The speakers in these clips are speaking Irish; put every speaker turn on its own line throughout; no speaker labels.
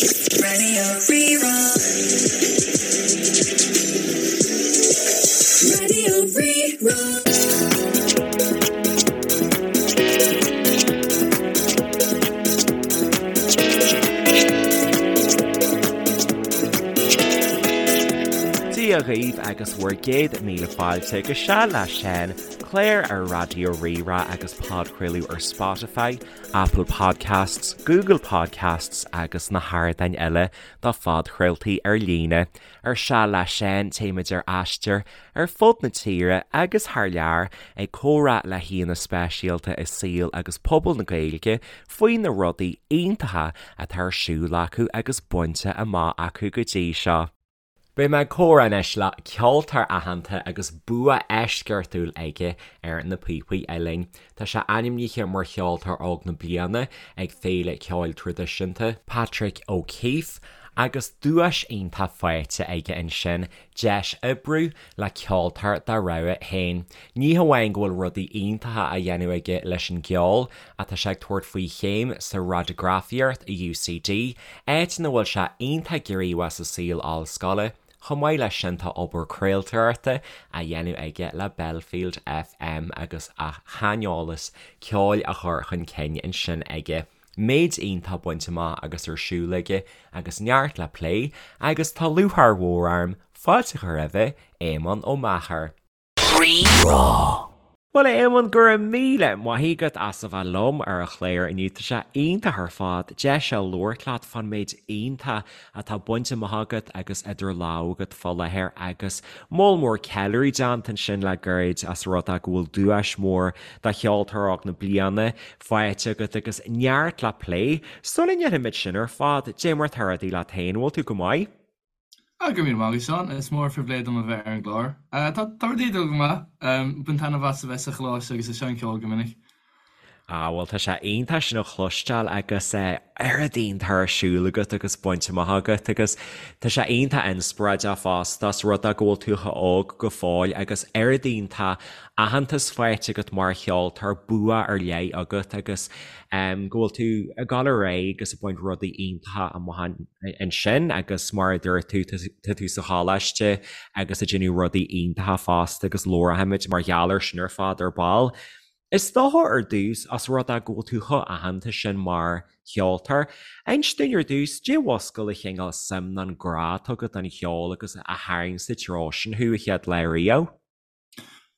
Radio Rí-Rá. Radio Rí-Rá.
Dia dhaoibh agus bhur gcéad míle fáilte go Seal le Seán, clár ar Raidió Rí-Rá agus podchraoladh ar Spotify, Apple Podcasts, Google Podcasts agus na hardáin eile do phodchraoltaí ar líne. Ar Seal le Seán téimid ar aistear ar fud na tíre agus thar lear ag comhrá le haíonna speisialta i saol agus pobal na Gaeilge faoi na rudaí iontacha atá ar siúl acu agus bainte amach acu go dtí seo. Beidh mé ag comhrá anois le ceoltóir aitheanta agus bua eisceachtúil aige ar na píopaí uilleann. Tá sé ainmnithe mar Cheoltóir Óg na Bliana ag Féile Ceoil Traidisiúnta Patrick O'Keeffe agus duais iontach faighte aige ansin, deis oibriú le ceoltóir dá rogha féin. Ní hamháin go bhfuil rudaí iontacha á dhéanamh aige leis an gceol, ach tá sé ag tabhairt faoi chéim sa radagrafaíocht i UCD, áit ina bhfuil sé iontach gníomhach sa saol ollscoile. Chomh maith leis sin tá obair craoltóireachta á dhéanamh aige le Belfield FM agus a shaineolas ceoil á chur chun cinn ansin aige. Méid iontach bainte amach agus ar siúl aige agus neart le plé agus tá lúcháir mhór orm fáilte a chur roimhe, Éamonn Ó Meachair.
Rí-Rá.
Bhuel, a Éamoinn, go raibh míle maith agat as a bheith liom ar an chlár inniu. Tá sé iontach ar fad deis a labhairt leat fán méid iontach atá bainte amach agat agus idir lámha agat fá láthair agus moll mór ceiliúradh déanta ansin le gairid as rud é go bhfuil duais mhór do Cheoltóir Óg na Bliana faighte agat agus neart le plé. Sula ndéanfaimid sin ar fad, dé mar tá rudaí leat féin, an bhfuil tú go maith?
Ah, go raibh míle maith agat, Seán. Is mór an phribhléid dom a bheith ar an gclár. Tá tá rudaí ag dul go maith. Bain taitneamh as a bheith sa choláiste agus ag seinm ceoil go minic.
Ah, bhuel tá sé iontach sin a chloisteáil agus oiread iontach ar siúl agat agus bainte amach agat agus tá sé iontach inspioráideach fosta as rud é go bhfuil tú chomh óg go fóill agus oiread iontach aitheantas faighte agat mar cheoltóir, bua ar leith agat agus go bhfuil tú ag dul ar aghaidh agus ag baint rudaí iontacha amach ansin agus mar a dúirt tú, tá tú sa choláiste agus ag déanamh rudaí iontacha fosta agus labharfaimid mar gheall air sin ar fad ar ball. Is dócha ar dtús, as rud é go bhfuil tú chomh aitheanta sin mar cheoltóir, inis dúinn ar dtús, dé mhuscail an chineál suim nó an grá atá agat don cheol agus a tharraing sa treo sin thú a chéad lá riamh?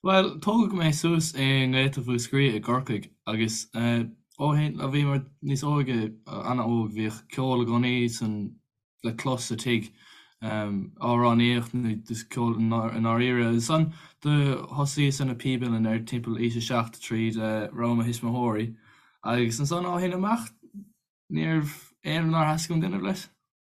Bhuel, tógadh mé suas i nGaeltacht Mhúscraí i gCorcaigh agus ó shin, ó bhí mé níos óige, an-óg, bhíodh ceol i gcónaí san, le clos sa tigh, amhránaíocht nó just ceol i ndáiríre. Ansan do thosaíos ar na píob uilleann ar timpeall aois a 7 tríd rogha mo thuismitheoirí agus ansan ó shin amach níorbh aon rud nár theastaigh uaim déanamh leis.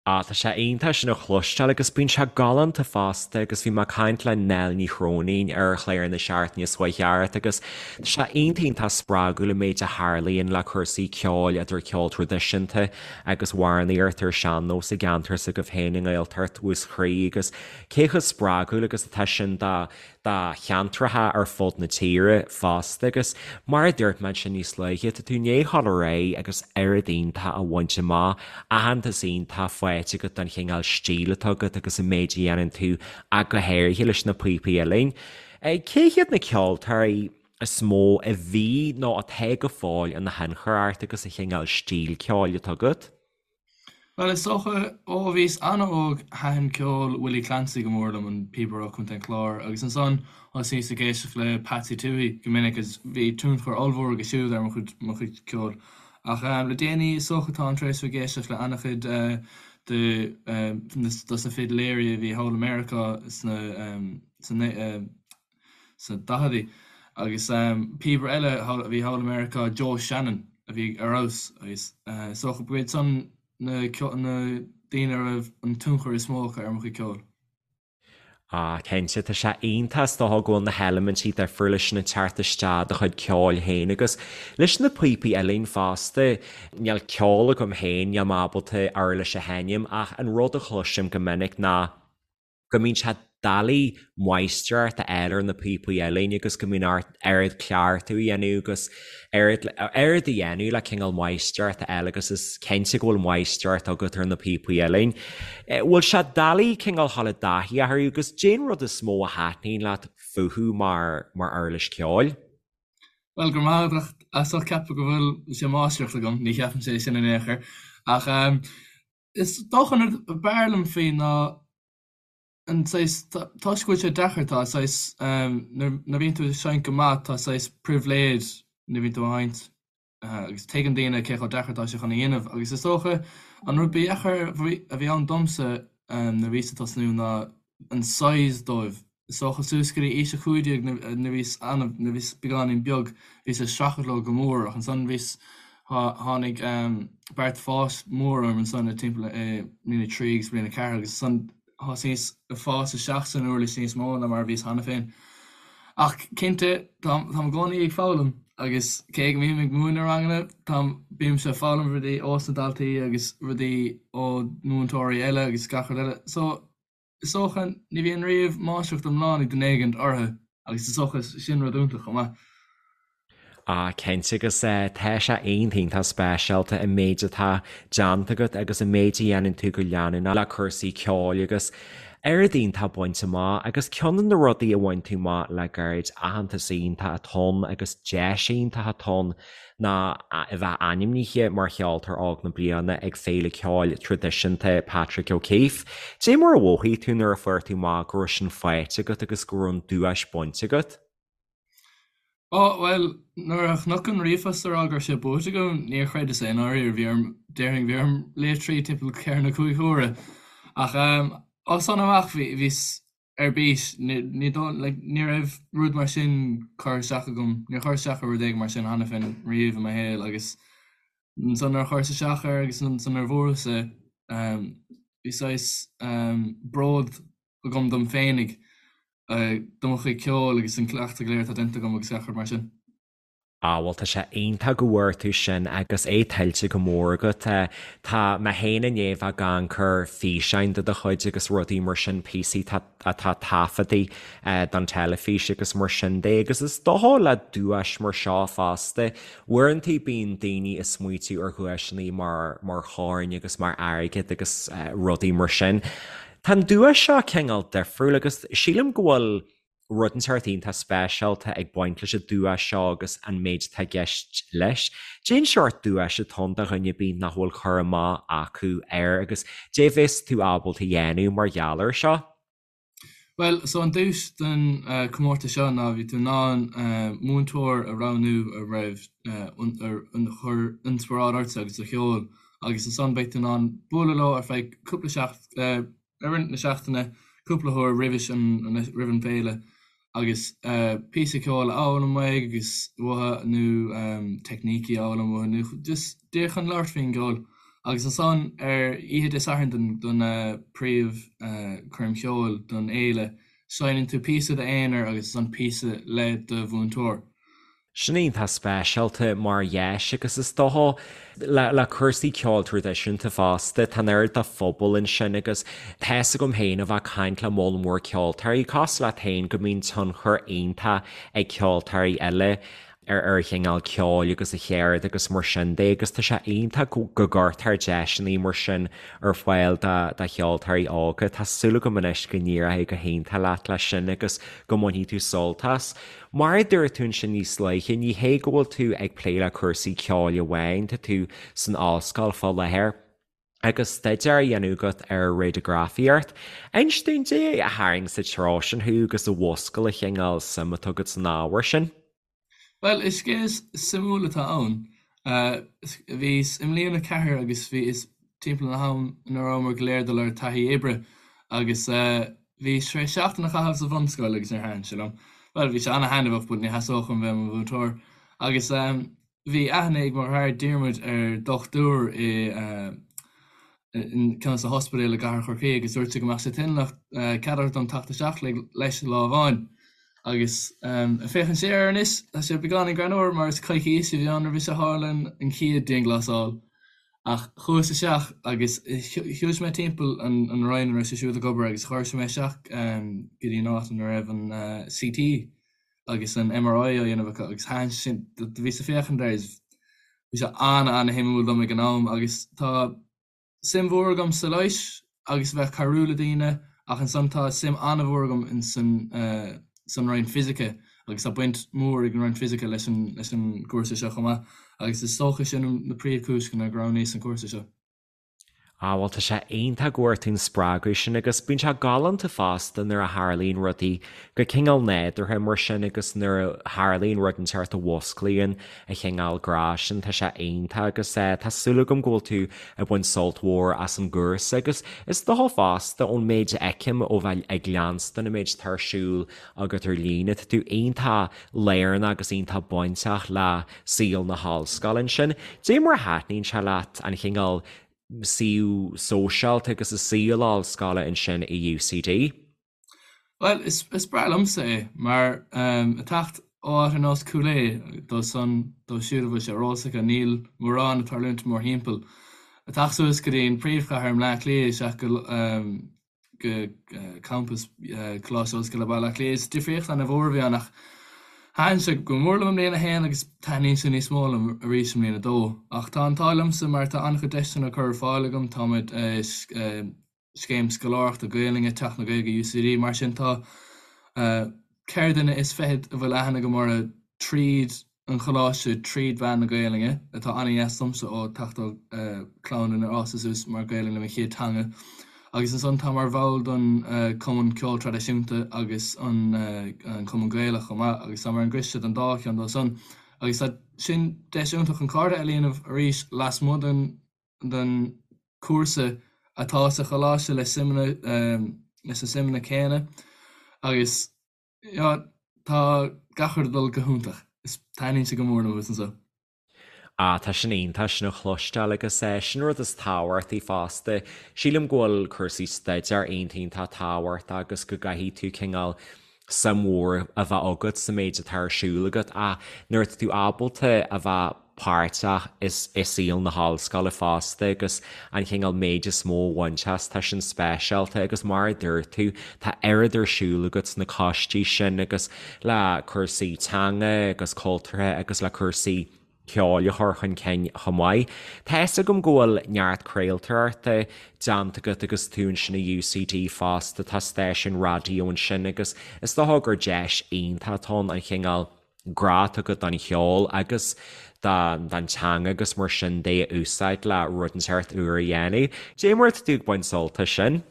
Ah, tá sé iontach sin a chloisteáil agus bíonn sé galánta fosta agus bhí mé ag caint le Nell Ní Chróinín ar chlár na seachtaine seo chuaigh thart agus tá sé iontach iontach spreagúil an méid a tharlaíonn le cúrsaí ceoil idir ceol traidisiúnta agus amhránaíocht ar sean-nós i gceantar s'agaibh féin i nGaeltacht Mhúscraí agus cé chomh spreagúil agus atá sin do do cheantracha ar fud na tíre fosta agus mar a dúirt mé ansin níos luaithe, tá tú i ndiaidh dhul ar aghaidh agus oiread iontach a bhaint amach, aitheantas iontach faighte agat don chineál stíl atá agat agus an méid a dhéanann tú ach go háirithe leis na píopaí uilleann. Cé hiad na ceoltóirí is mó a bhí nó atá go fóill ina thionchar ort agus an chineál stíl ceoil atá agat?
Bhuel, is dócha, ó bhíos an-óg, thaitin ceol Willie Clancy go mór liom, an píobaire ó Chontae an Chláir, agus ansan thosaíos ag éisteacht le Patsy Touhey go minic agus bhí tionchar ollmhór aige siúd ar mo chuid, mo chuid ceoil. Ach le déanaí, is dócha, táim tar éis bheith ag éisteacht le an-chuid de, dos na fidiléirí a bhí thall i Meiriceá sna, sna, sna daicheadaí. Agus píobaire eile a bhí thall i Meiriceá, Joe Shannon, a bhí ar fheabhas agus is dócha go iad san na daoine a raibh an tionchar is mó acu ar mo chuid ceoil.
Ah, cinnte, tá sé iontach is dócha go bhfuil na heilimintí difriúla sin ag teacht isteach i do chuid ceoil féin agus leis na píopaí uilleann fosta. Níl ceol agam féin, níl mé ábalta uirlis a sheinm ach an rud a chloisim go minic ná go mbíonn sé. doiligh máistreacht a fháil ar na píopaí uilleann agus go mbíonn ort oiread cleachtadh a dhéanamh agus oiread oiread a dhéanamh le cineál máistreacht a fháil agus is cinnte go bhfuil máistreacht agat ar na píopaí uilleann. Bhfuil sé doiligh cineál dhul i dtaithí orthu agus cén rud is mó a thaitníonn leat fúthu mar mar uirlis ceoil?
Bhuel, go raibh maith agat as ucht ceapadh go bhfuil sé máistreacht agam, ní cheapaimse é sin in aon chor. Ach is dócha an rud ab fhearr liom faoi ná an saghas, toisc go bhfuil sé deacair, tá saghas, nuair a bhíonn tú ag seinnt go maith, tá saghas pribhléid nuair a bhíonn tú ag seinnt. agus tuigeann daoine cé chomh deacair atá sé chun a dhéanamh agus is dócha an rud ba dheacair a bhí ann domsa nuair a bhíos ag tosnú ná an size dóibh. Is dócha suas go dtí aois a 15 nuair a bhíos an-, nuair a bhíos beagáinín beag bhíos ag streachailt leo go mór ach ansan bhíos, tháinig beart fáis mór orm ansan i timpeall i mbliain a 3 agus bliain a 4 agus ansan Thosaíos ag fás isteach san uirlis níos mó ná mar a bhíos cheana féin. Ach cinnte, táim i gcónaí ag foghlaim agus cé go mbím ag múineadh ranganna, táim, bímse ag foghlaim rudaí ós na daltaí agus rudaí ó mhúinteoirí eile agus gach rud eile. So, is dócha, ní bhíonn riamh máistreacht iomlán ag duine éigint orthu agus is dócha sin rud iontach chomh maith.
Ah cinnte agus tá sé iontach speisialta an méid atá déanta agat agus an méid a dhéanann tú go leanúnach le cúrsaí ceoil agus oiread iontach bainte amach agus ceann de na rudaí a bhain tú amach le gairid, aitheantas iontach atá ann agus deis iontach atá ann ná a bheith ainmnithe mar Cheoltóir Óg na Bliana ag Féile Ceoil Traidisiúnta Patrick O'Keeffe. Cad é mar a mhothaigh tú nuair a fuair tú amach go raibh sin faighte agat agus go raibh an duais bainte agat?
Ó, bhuel, nuair a chonac an ríomhphost ag rá go raibh sé buaite agam, níor chreideas é i ndáiríre. Bhí orm, déarfainn, bhí orm léamh tríd timpeall ceithre nó cúig huaire. Ach as san amach, bhí, bhíos ar bís. Ní, ní dóigh, like, ní raibh rud mar sin curtha isteach agam, níor chuir isteach ar rud éigin mar sin cheana féin riamh i mo shaol agus ansan nuair a chuireas isteach air agus ansan nuair a bhuas é, bhí saghas bród agam dom féinig, do mo chuid ceoil agus an cleachtadh go léir atá déanta agam agus gach rud mar sin.
Ah bhuel tá sé iontach go bhfuair tú sin agus é tuillte go mór agat. Tá mé féin i ndiaidh bheith ag amharc ar físeáin de do chuid agus rudaí mar sin, píosaí atá taifeadta don teilifís agus mar sin de agus is dócha le duais mar seo fosta, uaireanta bíonn daoine ag smaoitiú ar dhuaiseanna mar mar choirn agus mar airgead agus rudaí mar sin. Tá an duais seo cineál difriúil agus sílim go bhfuil rud inteacht iontach speisialta ag baint leis an duais seo agus an méid atá i gceist leis. Cén seort duais atá ann do dhuine ar bith nach bhfuil cur amach acu air agus cad é bheas tú ábalta a dhéanamh mar gheall air seo?
Bhuel, so an duais don comórtas seo ná bhí tú in ann múinteoir a roghnú a raibh a chuir inspioráid ortsa agus do cheol agus ansan beidh tú in ann bualadh leo ar feadh cúpla seacht i rith na seachtaine cúpla huair roimhis an roimh an bhféile agus píosa ceoil a fhoghlaim uaidh agus uathu nó teicnící a fhoghlaim uathu nó just díreach chun labhairt faoin gceol. Agus ansan ar oíche Dé Sathairn don don príomh choirm cheoil don fhéile seinneann tú píosa d'aonar agus ansan píosa le do mhúinteoir.
Sin iontach speisialta mar dheis agus is dócha le cúrsaí ceoil traidisiúnta fosta, tá an oiread de phobal ansin agus tá fhios agam féin ó bheith ag caint le moll mór ceoltóirí, cosúil leat féin, go mbíonn tionchar iontach ag ceoltóirí eile ar a chineál ceoil agus a cheird agus mar sin de agus tá sé iontach go gcuirtear deiseanna mar sin ar fáil do cheoltóirí óga. Tá súil agam anois go n-éireoidh go hiontach leat leis sin agus go mbainfidh tú sult as. Mar a dúirt tú ansin níos luaithe, ní hé go bhfuil tú ag plé le cúrsaí ceoil amháin, tá tú san ollscoil fá láthair agus staidéar á dhéanamh agat ar radagrafaíocht. Inis dúinn, cad é a tharraing sa treo sin thú agus a mhúscail an chineál suim atá agat san ábhar sin?
Bhuel, is scéal suimiúil atá ann. Bhíos i mbliain a ceathair agus bhíos timpeall an am ina rabhamar go léir ag dul ar taithí oibre agus bhíos tar éis seachtain a chaitheamh sa bhunscoil agus níor thaitin sé liom. Bhuel, bhí sé ana-thaitneamhach but ní theastódh uaim bheith i mo mhúinteoir. Agus bhí aithne ag mo dheartháir Diarmuid ar dhochtúir i ceann de na hospidéil i gcathair Chorcaí agus dúirt sé go mbeadh sé toilteanach cead a thabhairt dom teacht isteach leis lá amháin. Agus ag féachaint siar air anois, tá sé beagáinín greannmhar mar is coicís a bhí ann roimhe seo tharla an chéad dianghlasáil. Ach chuas isteach agus shiúil mé timpeall an roinn ina raibh sé siúd ag obair agus chuir sé mé isteach go dtí an áit ina raibh an CT agus an MRI á dhéanamh acu agus thaitin sé sin, do bhíos ag féachaint air is bhí sé an-an-shuimiúil dom ag an am agus tá suim mhór agam sa leighis agus a bheith ag cabhrú le daoine ach ansan tá suim an-mhór agam in san san roinn fisice agus tá baint mhór ag an roinn fisice leis an leis an gcúrsa seo chomh maith agus is dócha sin na príomhchúiseanna gur roghnaíos an cúrsa seo.
Ah bhuel tá sé iontach go bhfuair tú an spreagadh sin agus bíonn sé galánta fosta nuair a tharlaíonn rudaí go cineál nádúrtha mar sin agus nuair a tharlaíonn rud inteacht a mhusclaíonn an chineál grá sin, tá sé iontach agus tá súil agam go bhfuil tú ag baint sult mhór as an gcúrsa agus is dócha fosta ón méid a fheicim ó bheith ag leanstan an méid atá ar siúl agat ar líne, tá tú iontach lárnach agus iontach bainteach le saol na hollscoile ansin. Dé mar a thaitníonn sé leat an chineál suíomh sóisialta agus an saol ollscoile ansin i UCD?
Bhuel, is breá liomsa é, mar ag teacht ó áit ar nós Cúil Aodha, dóibh san, dóibh siúd a bhfuil sé ar eolas acu, níl mórán ag tarlúint mórthimpeall. Ag teacht suas go dtí an príomhchathair i mBleá Cliath isteach go go campas Coláiste Ollscoile Baile Átha Cliath, is difríocht ana-mhór a bhí ann ach thaitin sé go mór liom i mbliain a haon agus taitníonn sé níos mó liom arís i mbliain a dó. Ach tá an t-ádh liomsa mar tá an-chuid deiseanna curtha ar fáil agam, táimid Scéim Scoláireachta Gaelainne Teach na Gaeilge UCD. Mar sin tá 24 duine a bhfuil aithne agam orthu tríd an choláiste tríd mheán na Gaelainne, atá an-dheas domsa ó teacht ó chlann inar fhásadh suas mar Gaelainn mo chéad teanga. Agus ansan tá mar bhall don Cumann Ceoil Traidisiúnta agus an Cumann Gaelach chomh maith agus tá mar an gcoiste don dá cheann dó san. Agus tá sin deis iontach chun cairde a dhéanamh arís lasmuigh den den chúrsa atá sa choláiste le suimeanna leis na suimeanna céanna agus yeah tá gach rud ag dul go hiontach. Is taitníonn sé go mór liom a bheith anseo.
Ah, tá sin iontach sin a chloisteáil agus eh sin rud is tábhachtaí fosta. Sílim go bhfuil cúrsaí staidéir iontach iontach tábhachtach agus go gcaithfidh tú cineál suim mhór a bheith agat sa méid atá ar siúl agat ach nuair atá tú ábalta a bheith páirteach i saol na hollscoile fosta agus an chineál méid is mó a bhaint as, tá sin speisialta agus mar a dúirt tú, tá oiread ar siúl agat sna coistí sin agus le cúrsaí teanga agus cultúrtha agus le cúrsaí ceoil a chur chun cinn chomh maith. Tá fhios agam go bhfuil neart craoltóireachta déanta agat agus tú ansin i UCD fosta, tá stáisiún raidió ansin agus is dócha gur deis iontach atá ann an chineál grá atá agat don cheol agus don teanga agus mar sin de a úsáid le rud inteacht úr a dhéanamh. Dé mar atá tú ag baint sult as sin?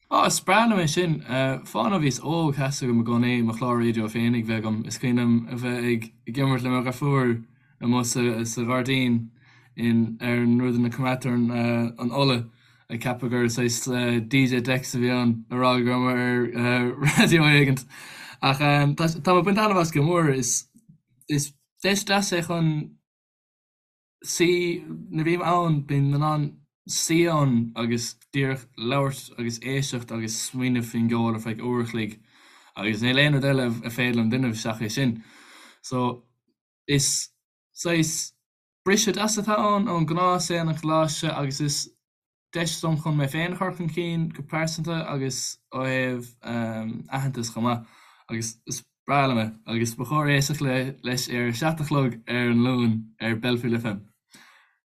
Á, is breá liom é sin. Fán ó bhíos óg, theastaigh uaim i gcónaí mo chlár raidió féinig bheith agam. Is cuimhin liom a bheith ag imirt le mo dheirfiúr amuigh sa ghairdín in ar an rud ina coimeádtar an ola, ag ceapadh gur saghas DJ decks a bhí ann, ag rá go raibh mé ar raidió éigint. Ach tá mé ag baint taitneamh as go mór. Is deis deas é chun suí, nuair a bhím ann, bím in ann suí ann agus díreach labhairt agus éisteacht agus smaoineamh faoin gceol ar feadh uair a chloig agus níl aon rud eile a féidir liom déanamh seachas é sin. So, is saghas briseadh deas atá ann ón gnáthshaol an choláiste agus is deis dom chun mé féin a chur chun cinn go pearsanta agus ó thaobh aitheantas chomh maith agus is breá liom é agus ba chóir éisteacht leis ar a 7 a chlog ar an Luan ar Belfield FM.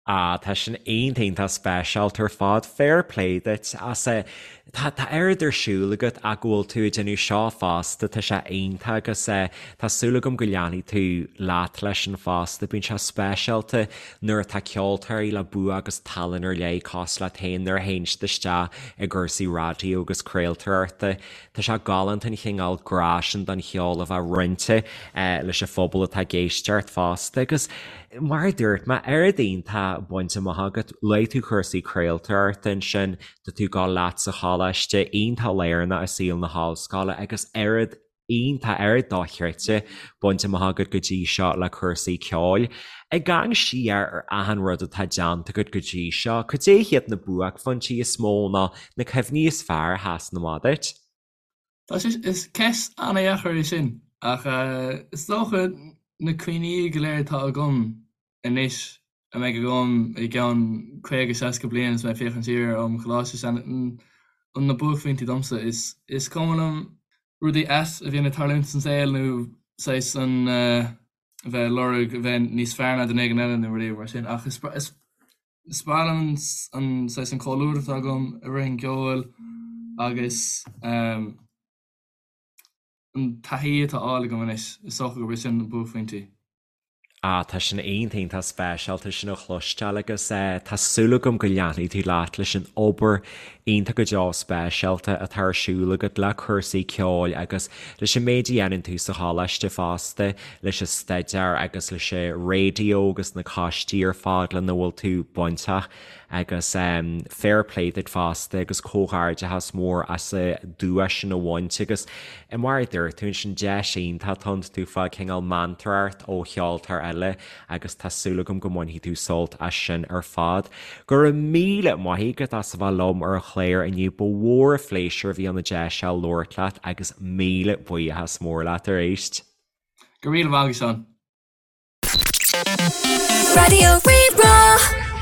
Ah, tá sin iontach iontach speisialta ar fad, fair play duit as é. Tá tá oiread ar siúl agat ach go bhfuil tú ag déanamh seo fosta, tá sé iontach agus eh tá súil agam go leanfaidh tú leat leis sin fosta, bíonn sé speisialta Nuair atá ceoltóirí le bua agus tallann ar leith cosúil leat féin, nuair a théann siad isteach i gcúrsaí raidió agus craoltóireachta, tá sé galánta an chineál grá sin don cheol a bheith roinnte leis an phobal atá ag éisteacht fosta. Agus mar a dúirt mé, oiread iontach bainte amach agat, luaigh tú cúrsaí craoltóireachta ansin, tá tú ag gabháil leat sa choláiste, iontach lárnach i saol na hollscoile agus oiread iontach, oiread dochreidte bainte amach agat go dtí seo le cúrsaí ceoil. Ag amharc siar ar achan rud atá déanta agat go dtí seo, cad é hiad na buaicphointí is mó nó na cuimhní is fearr a sheasann amach duit?
Tá sé, is ceist an-dheacair é sin, ach is dócha na cuimhní go léir atá agam anois. a mbeidh agam i gceann 50, 60 bliain is mé ag féachaint siar ar am choláiste sin an na buaicphointí domsa. Is is cuma liom rudaí ait a bhíonn ag tarlúint san saol nó saghas an a bheith ag lorg a bheith níos fearr ná duine éigin eile nó rudaí mar sin ach is is is breá liom an an saghas an comhluadar atá agam i rith an cheoil agus an taithí atá á fháil agam anois is dócha gurb é sin na buaicphointí.
Ah, tá sin iontach iontach speisialta sin a chloisteáil agus eh tá súil agam go leanfaidh tú leat leis an obair iontach go deo speisialta atá ar siúl agat le cúrsaí ceoil agus leis an méid a dhéanann tú sa choláiste fosta, leis an staidéar agus leis an raidió agus na coistí ar fad lena bhfuil tú bainteach. Agus fair play duit fosta agus comhghairdeachas mór as an duais sin a bhaint agus mar a dúirt tú ansin deis iontach atá ann tú ag fáil cineál meantóireacht ó cheoltóir eile agus tá súil agam go mbainfidh tú sult as sin ar fad. Go raibh míle maith agat as a bheith liom ar an chlár inniu, ba mhór an phléisiúr a bhí ann an deis seo labhairt leat agus míle buíochas mór leat arís.
Go raibh míle maith agat Seán.
Raidió Rí-Rá.